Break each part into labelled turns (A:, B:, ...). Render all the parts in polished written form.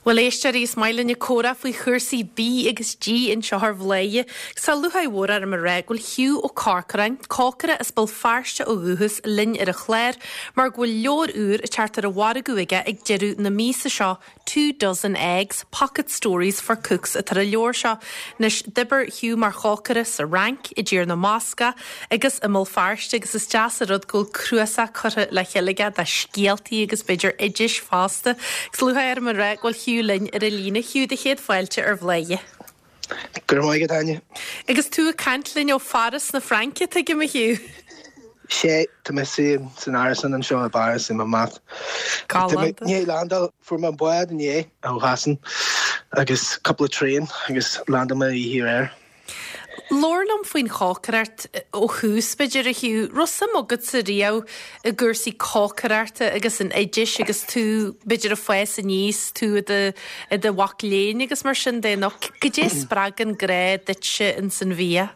A: Bhuel, a éisteoirí, is maith linn comhrá faoi chúrsaí bídh agus dí anseo ar Bhladhaire. Agus tá lúcháir mhór orm a rá go bhfuil Hugh Ó Corcoráin, cócaire as Béal Feirste ó dhúchas, linn ar an chlár mar go bhfuil leabhar úr ag teacht ar an mhargadh aige ag deireadh na míosa seo, Two Dozen Eggs, Pocket Stories for Cooks atá ar an leabhar seo. Anois, d'oibir Hugh mar chócaire sa Fhrainc, i dTír na mBascach agus i mBéal Feirste agus is deas an rud go bhfuil cnuasach curtha le chéile aige de scéaltaí agus b'fhéidir oidis fosta. Agus lúcháir orm a rá go bhfuil Hugh linn ar an líne. Hugh, do chéad fáilte ar Bhladhaire.
B: Go raibh maith agat, Áine.
A: Agus tú ag caint linn ó Pháras na Fraince, tuigim, a Hugh.
B: Sea, tá mé san árasán anseo i bPáras i Montmartre. Tá mé i ndiaidh landáil, fuair mé an bád inné ó Shasana agus cúpla traein agus landáil mé oíche aréir.
A: Labhair liom faoin chócaireacht ó thús, b'fhéidir, a Hugh. Raibh suim agatsa riamh i gcúrsaí cócaireachta agus in oidis agus tú, b'fhéidir, ag fás aníos, tú i do, i do mhac léinn agus mar sin de, nó goidé a spreag an grá duitse ins an bhia?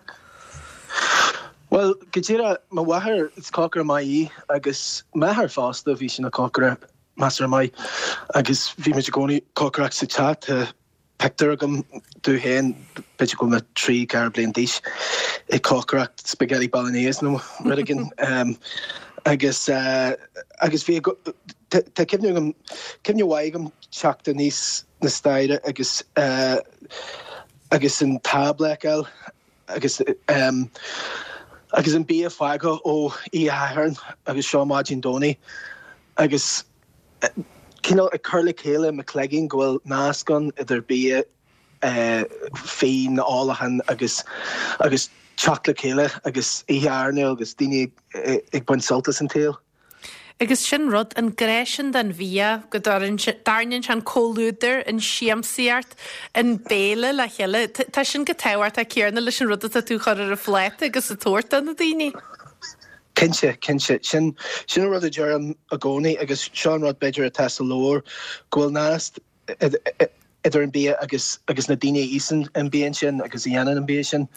B: Bhuel, go díreach, mo mháthair, is cócaire maith í agus m'athair fosta, bhí sé ina chócaire measartha maith agus bhí muid i gcónaí ag cócaireacht sa teach. Tá pictiúr agam domh féin, b'fhéidir go bhfuil mé 3, 4 bliain d'aois, ag cócaireacht spaghetti bolognese nó rud éigin. Agus agus bhí tá cuimhne agam, cuimhne mhaith agam teacht aníos na staighre agus agus an tábla a fheiceáil agus agus an bia fágtha ó oíche Shathairn agus seo maidin Domhnaigh agus cineál ag cur le chéile i mo chloigeann go bhfuil nasc ann idir bia, fíon, ólachán agus agus teacht le chéile agus oíche airneáil agus daoine ag baint sult as an tsaol.
A: Agus sin rud, an grá sin don bhia, go dtarraingíonn sé an comhluadar, an siamsaíocht, an béile le chéile. Tá sin chomh tábhachtach céanna leis an rud atá tú a chur ar an phláta agus a tabhairt do na daoine.
B: Cinnte, cinnte. Sin, sin an rud a deirim i gcónaí agus seo an rud b'fhéidir atá sa leabhar, go bhfuil nasc idir an bia agus, agus na daoine a íosann an bia sin agus a dhéanann an bia sin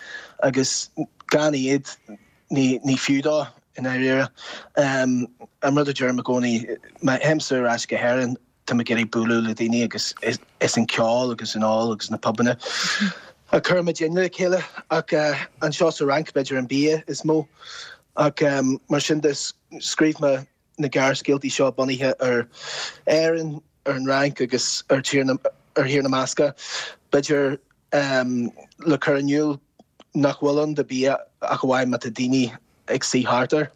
B: agus gan iad ní, ní fiú dó i ndáiríre. An rud a deirim i gcónaí, má théimse ar ais go hÉirinn, Tá mé ag iarraidh bualadh le daoine agus is an ceol agus an ól agus na pubanna a chuireann muidinne le chéile ach anseo sa Fhrainc b'fhéidir an bia is mó ach mar sin de scríobh mé na gearrscéaltaí seo bunaithe ar Éirinn, ar an Fhrainc agus ar Thír na ar Thír na mBascach b'fhéidir le cur in iúl nach bhfuil ann do bia ach amháin má tá daoine ag suí thart air.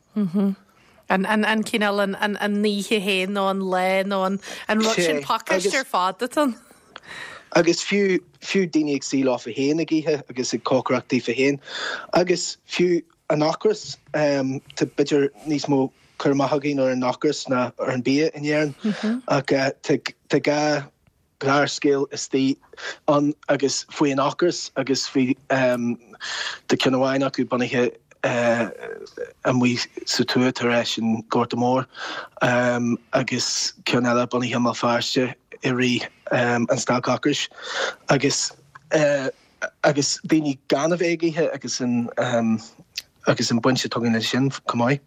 A: An cineál an oíche féin nó an lá nó an rud sin pacáiste ar fad atá ann.
B: Agus fiú, fiú daoine ag suí leofa féin ag ithe agus ag cócaireacht daofa féin. Agus fiú an ocras, tá b'fhéidir níos mó cur amach againn ar an ocras ná ar an bia in Éirinn ach tá gá gearrscéal istigh ann agus faoi an ocras agus faoi tá ceann amháin acu bunaithe amuigh sa tuath tar éis an Gorta Mór agus ceann eile bunaithe i mBéal Feirste i rith an stailc ocrais agus agus daoine gan a bheith ag ithe agus an agus an baint atá againn leis sin chomh maith.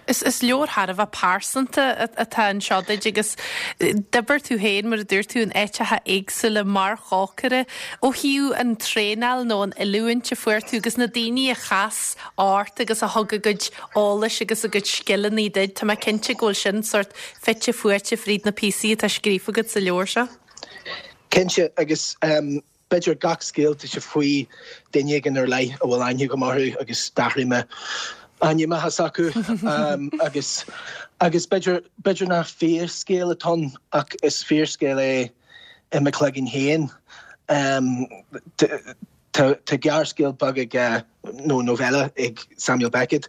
A: Is is leabhar thar a bheith pearsanta atá anseo duit agus d'oibir tú féin, mar a dúirt tú, in áiteacha éagsúla mar chócaire. Ó thaobh an traenáil nó an oiliúint a fuair tú agus na daoine a chas ort agus a thug a gcuid eolais agus a gcuid scileanna duit, tá mé cinnte go bhfuil sin sórt fite fuaite fríd na píosaí atá scríofa agat sa leabhar seo.
B: Cinnte, agus B'fhéidir gach scéal tá sé faoi duine éigin ar leith a bhfuil aithne agam orthu agus d'athraigh mé ainmneacha s'acu agus agus b'fhéidir b'fhéidir nach fíorscéal atá ann ach is fíorscéal é i mo chloigeann féin. Tá tá gearrscéal beag ag nó novella ag Samuel Beckett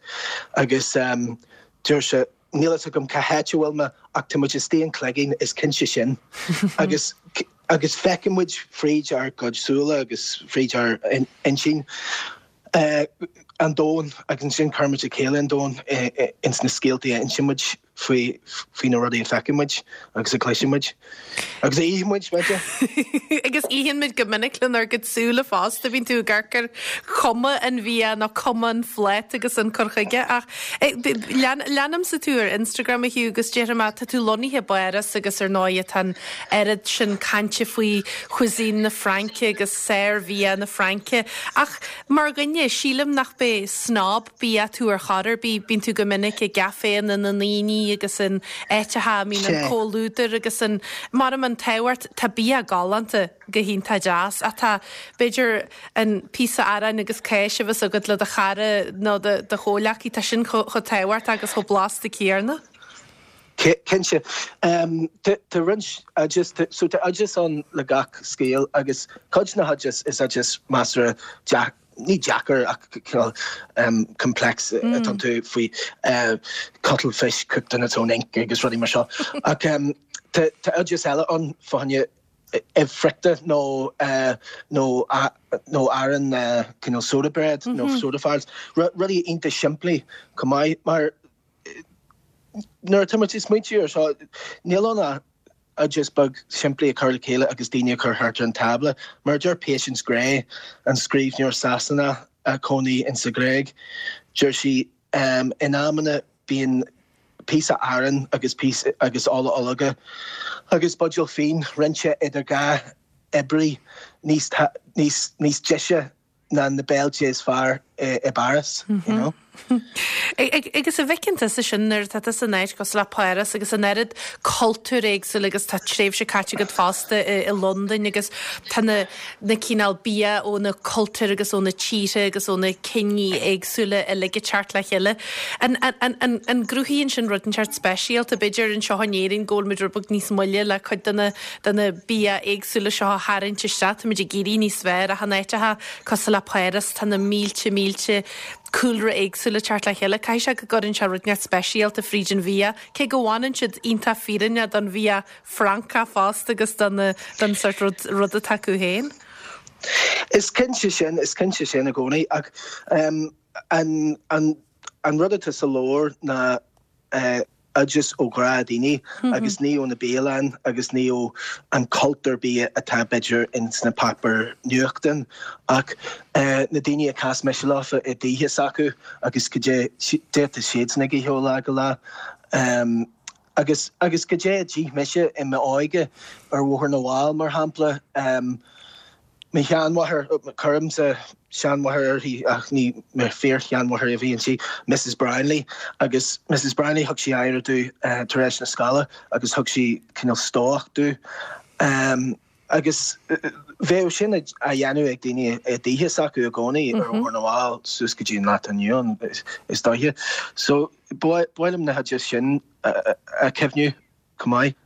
B: agus deir sé Níl fhios agam cá háit a bhfuil mé ach tá muid istigh in cloigeann, is cinnte sin. Agus agus feiceann muid fríd ár gcuid súile agus fríd ár intinn an domhan agus ansin cuireann muid le chéile an domhan ins na scéaltaí a insíonn muid. faoi faoi na rudaí a feiceann muid agus a chloiseann muid. Agus a itheann muid, b'fhéidir.
A: Agus itheann muid go minic lenár gcuid súile fosta, bíonn tú ag amharc ar chuma an bhia nó cuma an phláta agus an cur chuige ach leanaimse tú ar Instagram a Hugh agus déarfaidh mé tá tú lonnaithe i bPáras agus ar ndóigh tá an oiread sin cainte faoi cuisine na Fraince agus sár-bhia na Fraince ach mar dhuine sílim nach b'é snob bia tú ar chor ar bith, bíonn tú go minic i gcaiféanna na ndaoine agus in áiteacha a mbíonn an comhluadar agus an, maram an t-ádh ort, tá bia galánta go hiontach deas ach tá, b'fhéidir, an píosa aráin agus cáis a bheas agat le do chara nó do chomhghleacaí, tá sin chomh tábhachtach agus chomh blasta céanna.
B: Cinnte. Tá roinnt oideas, so tá oideas ann le gach scéal agus cuid de na hoideas is oideas measartha ní deacair ach cineál complex atá iontu faoi cuttlefish cooked in its own ink agus rudaí mar seo. Ach tá oideas eile ann fá choinne ubh friochta nó nó nó arán cineál soda bread nó soda farls, rudaí iontach simplí chomh maith mar nuair atá muid ag smaointiú ar seo níl ann ach oideas beag simplí a chur le chéile agus daoine a chur thart ar an tábla. Mar a deir Patience Gray, an scríbhneoir Sasanach a chónaí insa Ghréig, deir sí, In amanna bíonn píosa aráin agus píosa agus ola ológa agus buidéal fíon roinnte idir 2 oibrí níos níos níos deise ná na béiltí is fearr i bPáras, you know.
A: Agus an bhfeiceann tusa sin nuair atá tusa in áit cosúil le Páras agus an oiread cultúr éagsúil agus tá tréimhse caite agat fosta i Londain agus tá na na cineál bia ó na cultúir agus ó na tíortha agus ó na ciní éagsúla uilig ag teacht le chéile. An an an an gcruthaíonn sin rud inteacht speisialta? B'fhéidir anseo in Éirinn go bhfuil muid rud beag níos moille le cuid de na de na bia éagsúla seo a tharraingt isteach. Táimid ag éirí níos fearr ach in áiteacha cosúil le Páras tá na mílte mílte cúlra éagsúla ag teacht le chéile. Caithfidh sé go gcuireann sé rud inteacht speisialta fríd an bhia, cé go bhfanann siad iontach fírinneach don bhia Francach fosta agus don don sort rud rud atá acu féin.
B: Is cinnte sin, is cinnte sin i gcónaí ach an an an rud atá sa leabhar ná oideas ó ghnáthdhaoine agus ní ó na bialanna agus ní ó an cultúr bia atá b'fhéidir ins na páipéir nuachtáin ach na daoine a chas mise leofa i dtithe s'acu agus goidé atá siadsan ag ithe ó lá go lá. Agus agus goidé a d'ith mise i m'óige ar Bhóthar na bhFál mar shampla. Mo sheanmháthair, cuirimse seanmháthair uirthi ach ní mo fíor-sheanmháthair a bhí inti, Mrs Brownlee, agus Mrs Brownlee thug sí aire domh tar éis na scoile agus thug sí cineál stobhach domh. Agus bheadh sin á dhéanamh ag daoine i dtithe s'acu i gcónaí ar Bhóthar na bhFál suas go dtí an lá atá inniu ann is dóiche. So ba mhaith liom na hoidis sin a chuimhniú. chomh maith.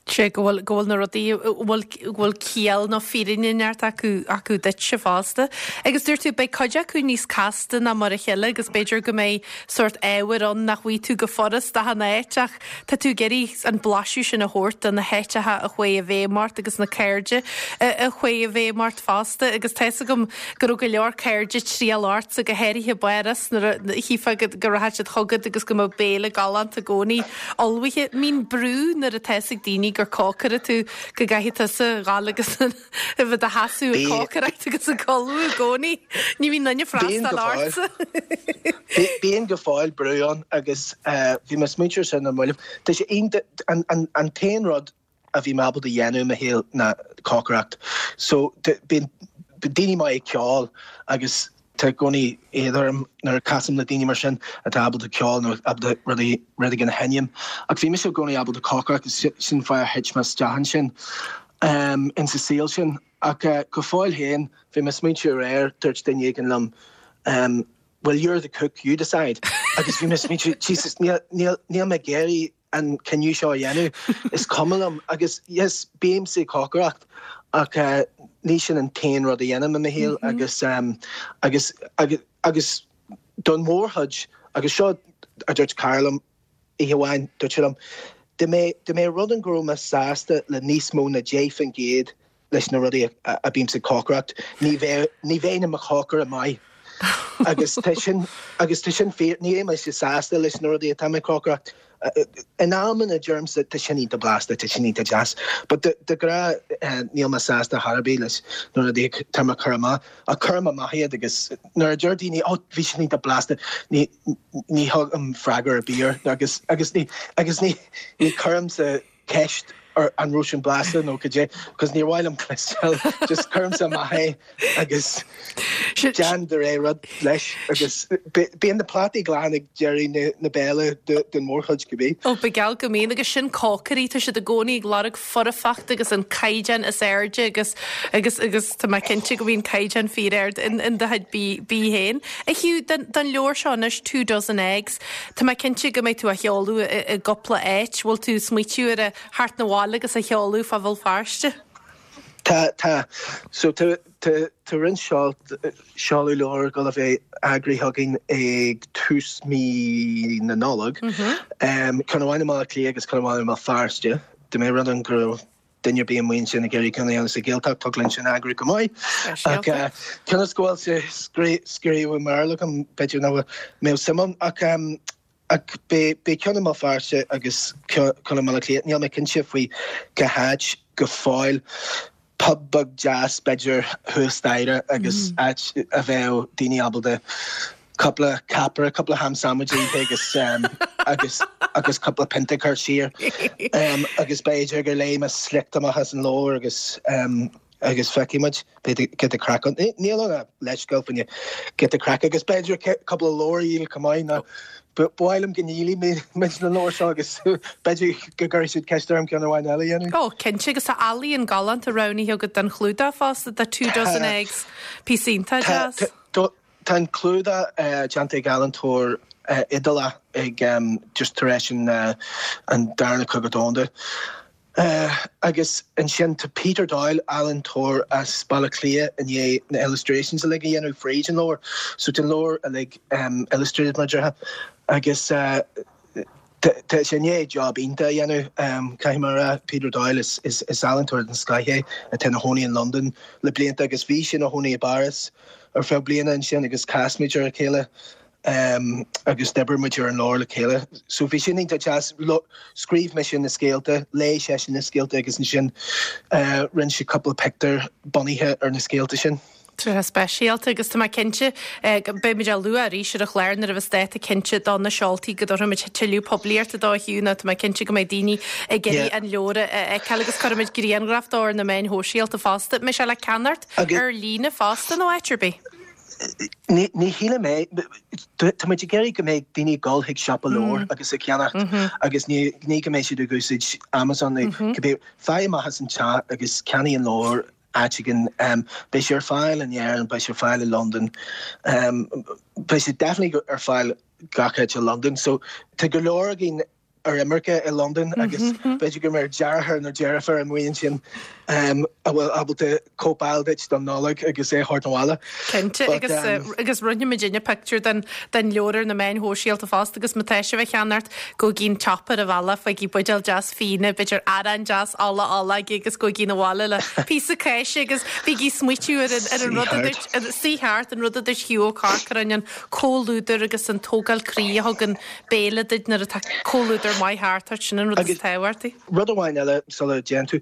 A: Sé go bhfuil, go bhfuil na rudaí, go bhfuil, go bhfuil ciall nó fírinne inteacht acu, acu duitse fosta. Agus dúirt tú, beidh cuid acu níos casta ná mar a chéile agus b'fhéidir go mbeidh sórt ábhair ann nach bhfaighidh tú go furast achan áit ach tá tú ag iarraidh an blaiseadh sin a thabhairt do na háiteacha a chuaigh i bhfeidhm ort agus na cairde a chuaigh i bhfeidhm ort fosta agus tá fhios agam go raibh go leor cairde ag triall ortsa, go háirithe i bPáras nuair a chífeá go, go rachadh siad chugat agus go mbeadh béile galánta i gcónaí. ullmhaithe. Mbíonn brú nuair atá fhios ag daoine gur cócaire tú go gcaithfidh tusa dhul agus a bheith i do sheasamh ag cócaireacht agus ag ullmhú i gcónaí. Ní bhíonn duine freastal ortsa.
B: Bíonn go fóill brú ann agus bhí mé ag smaointiú ar sin ar mallaibh. Tá sé iontach, an t-aon rud a bhí mé ábalta a dhéanamh i mo shaol ná cócaireacht. So bíonn daoine maith ag ceol agus tá i gcónaí éad orm nuair a casaim le daoine mar sin atá ábalta ceol nó ábalta rudaí rud éigin a sheinm. Ach bhí mise i gcónaí ábalta cócaireacht agus sin fáth ar thit mé isteach ansin insa saol sin. Ach go fóill féin bhí mé ag smaointiú aréir, dúirt duine éigin liom well you're the cook, you decide. Agus bhí mé ag smaointiú Jesus níl níl mé ag iarraidh an cinneadh seo a dhéanamh. Is cuma liom agus yes, bímse ag cócaireacht ach ní sin an t-aon rud a dhéanaim i mo shaol agus agus agus agus don mhórchuid agus seo a dúirt cara liom oíche amháin, dúirt sé liom, dá mbeadh dá mbeadh rud ann go raibh mé sásta le níos mó ná 10% leis na rudaí a bímse ag cócaireacht, ní bheadh, ní bheinn i mo chócaire maith. Agus tá sin, agus tá sin fíor, ní bheidh mise sásta leis na rudaí atá mé ag cócaireacht. In amanna deirimse tá sin iontach blasta, tá sin iontach deas. But de ghnáth níl mé sásta chor ar bith leis na rudaí atá mé ag cur amach. Ach cuirim amach iad agus nuair a deir daoine oh bhí sin iontach blasta ní ní thugaim freagra ar bith air agus agus ní agus ní ní cuirimse ceist ar an raibh sin blasta nó cad é because níor mhaith liom cloisteáil just cuirimse amach é agus déan do rogha rud leis agus bíonn na plátaí glan ag deireadh na béile den mhórchuid cibé.
A: Ó ba gheall go mbíonn agus sin cócairí tá siad i gcónaí ag lorg foirfeacht agus an caighdeán is airde agus agus agus tá mé cinnte go mbíonn caighdeán fíor-ard in in do chuid bídh féin. A Hugh, don don leabhar seo anois Two Dozen Eggs, tá mé cinnte go mbeidh tú á sheoladh i i gcúpla áit. Bhfuil tú ag smaoitiú ar a theacht 'na bhaile agus a sheoladh fá Bhéal Feirste?
B: Tá, tá. So tá tá tá roinnt seol seoladh leabhar ag dul a bheith eagraithe againn ag tús mí na Nollag. Ceann amháin i mBaile Átha Cliath agus ceann amháin i mBéal Feirste. Dá mba rud é go raibh duine ar bith amuigh ansin ag iarraidh ceann a dhéanamh sa Ghaeltacht, thig linn sin a eagrú go maith. Ach cionn is go bhfuil sé scríofa i mBéarla agam, b'fhéidir nach mbeadh suim ann. Ach ach beidh ceann i mBéal Feirste agus ceann i mBaile Átha Cliath. Níl mé cinnte faoi cá háit go fóill. Pub beag deas b'fhéidir thuas staighre agus áit a bheadh daoine ábalta cúpla caipire, cúpla ham sandwich a ithe agus agus agus cúpla pionta a chur siar. Agus b'fhéidir gur léigh mé sliocht amach as an leabhar agus agus feicfidh muid b'fhéidir giota craic ann. Níl ann ach leithscéal faoin giota craic agus b'fhéidir cúpla leabhar a dhíol chomh maith nó ba mhaith liom go ndíolfaidh muid na leabhair seo agus b'fhéidir go gcuirfidh siad ceist orm ceann amháin eile a dhéanamh.
A: Ó, cinnte, agus tá ealaíon galánta roghnaithe agat don chlúdach fosta, the Two Dozen Eggs, píosa iontach deas.
B: Tá an clúdach déanta ag ealaíontóir Iodálach ag just tar éis an Darna Cogadh Domhanda. Agus ansin tá Peter Doyle, ealaíontóir as Baile Átha Cliath, i ndiaidh na illustrations uilig a dhéanamh fríd an leabhar. So tá an leabhar uilig illustrated mar a déarfá. Agus tá sé i ndiaidh job iontach a dhéanamh, caithfidh mé a rá. Peter Doyle, is ealaíontóir den scoth é atá ina chónaí in Londain le blianta agus bhí sé ina chónaí i bPáras ar feadh bliana ansin agus chas muid ar a chéile. agus d'oibir muid ar an leabhar le chéile. So bhí sin iontach deas. Scríobh mise na scéalta, léigh seisean na scéalta agus ansin rinne sé cúpla pictiúr bunaithe ar na scéalta sin.
A: Tréithe speisialta agus tá mé cinnte go mbeidh muid á lua arís ar an chlár nuair a bheas dáta cinnte do na seoltaí go dtabharfaimid tuilleadh poiblíochta dó a Hugh nó tá mé cinnte go mbeidh daoine ag iarraidh an leabhar a fheiceáil agus cuirfimid grianghraf dó ar na meáin shóisialta fosta. Mbeidh sé le ceannacht ar líne fosta nó áit ar bith?
B: Ní shílim é. Tá muid ag iarraidh go mbeidh daoine ag dul chuig siopa leabhar agus ag ceannacht agus ní go mbeidh siad ag úsáid Amazon nó cibé. Faigh amach as an teach agus ceannaigh an leabhar áit éigin. Beidh sé ar fáil in Éirinn, beidh sé ar fáil i Londain. Beidh sé definitely ar fáil gach áit i Londain. So tá go leor againn ar imirce i Londain agus b'fhéidir go mbeidh deartháir nó deirfiúr amuigh ansin a bhfuil ábalta cóip a fháil duit don Nollaig agus é a thabhairt abhaile.
A: Cinnte, agus agus roinnfidh muidinne pictiúr den den leabhar ar na meáin shóisialta fosta agus má tá sibh á cheannacht gabhaigí an tsiopa ar an bhealach, faighigí buidéal deas fíona, b'fhéidir arán deas ola ola agus gabhaigí abhaile le píosa cáise agus bígí ag smaoitiú ar an ar an rud a dúirt, suigh thart, an rud a dúirt Hugh Ó Corcoráin, an comhluadar agus an tógáil croí a thugann béile duit nuair atá comhluadar maith thart ort, sin an rud is tábhachtaí.
B: Rud amháin eile sula dtéann tú,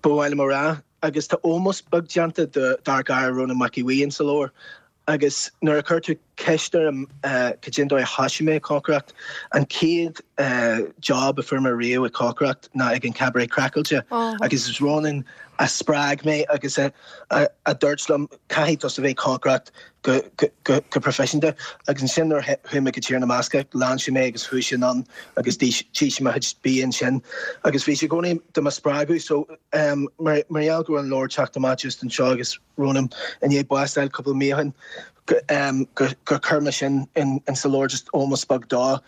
B: ba mhaith liom a rá, agus tá ómós beag déanta dár gcara Rónán Mac Aodha Bhuí insa leabhar, agus nuair a chuir tú ceist orm cad é an dóigh a thoisigh mé ag cócaireacht, an chéad job a fuair mé riamh ag cócaireacht ná ag an Cabaret Craiceáilte agus is Rónán a spreag mé agus a dúirt liom caithfidh tusa bheith ag cócaireacht go proifisiúnta. Agus ansin nuair a chuaigh mé go Tír na mBascach, lean sé mé agus chuaigh sé anonn agus d'ith sé mo chuid bia ansin. Agus bhí sé i gcónaí do mo spreagadh. So mar gheall go raibh an leabhar teacht amach just anseo agus Rónán i ndiaidh bás a fháil cúpla mí ó shin, gur chuir mé sin in sa leabhar just ómós beag dó,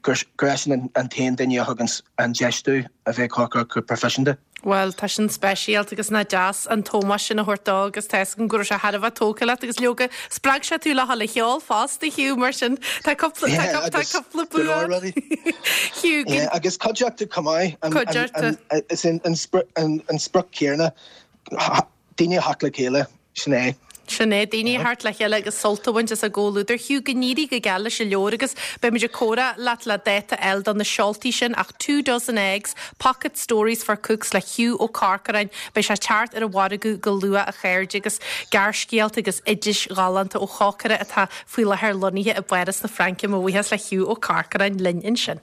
B: gur eisean an t-aon duine a thug an deis domh a bheith ag cócaireacht go proifisiúnta.
A: Bhuel, tá sin speisialta agus nach deas an t-ómós sin a thabhairt dó agus tá fhios agam go raibh sé thar a bheith tógtha leat agus leoga, spreag sé tú le dhul a cheol fosta, Hugh, mar sin tá cúpla, tá tá cúpla
B: bua agat. Hugh, go. Agus cuideachta chomh maith.
A: Cuideachta.
B: Is an sprioc céanna, daoine a theacht le chéile, sin é.
A: Sin é, daoine a theacht le chéile agus sult a bhaint as a gcomhluadar. Hugh, go n-éirí go geal leis an leabhar agus beimid ag comhrá leat le dáta a fháil do na seoltaí sin ach Two Dozen Eggs, Pocket Stories for Cooks le Hugh Ó Corcoráin, beidh sé ag teacht ar an mhargadh go luath a chairde agus gearrscéalta agus oidis ghalánta ó chócaire atá faoi láthair lonnaithe i bPáras na Fraince. Mo bhuíochas le Hugh Ó Corcoráin linn ansin.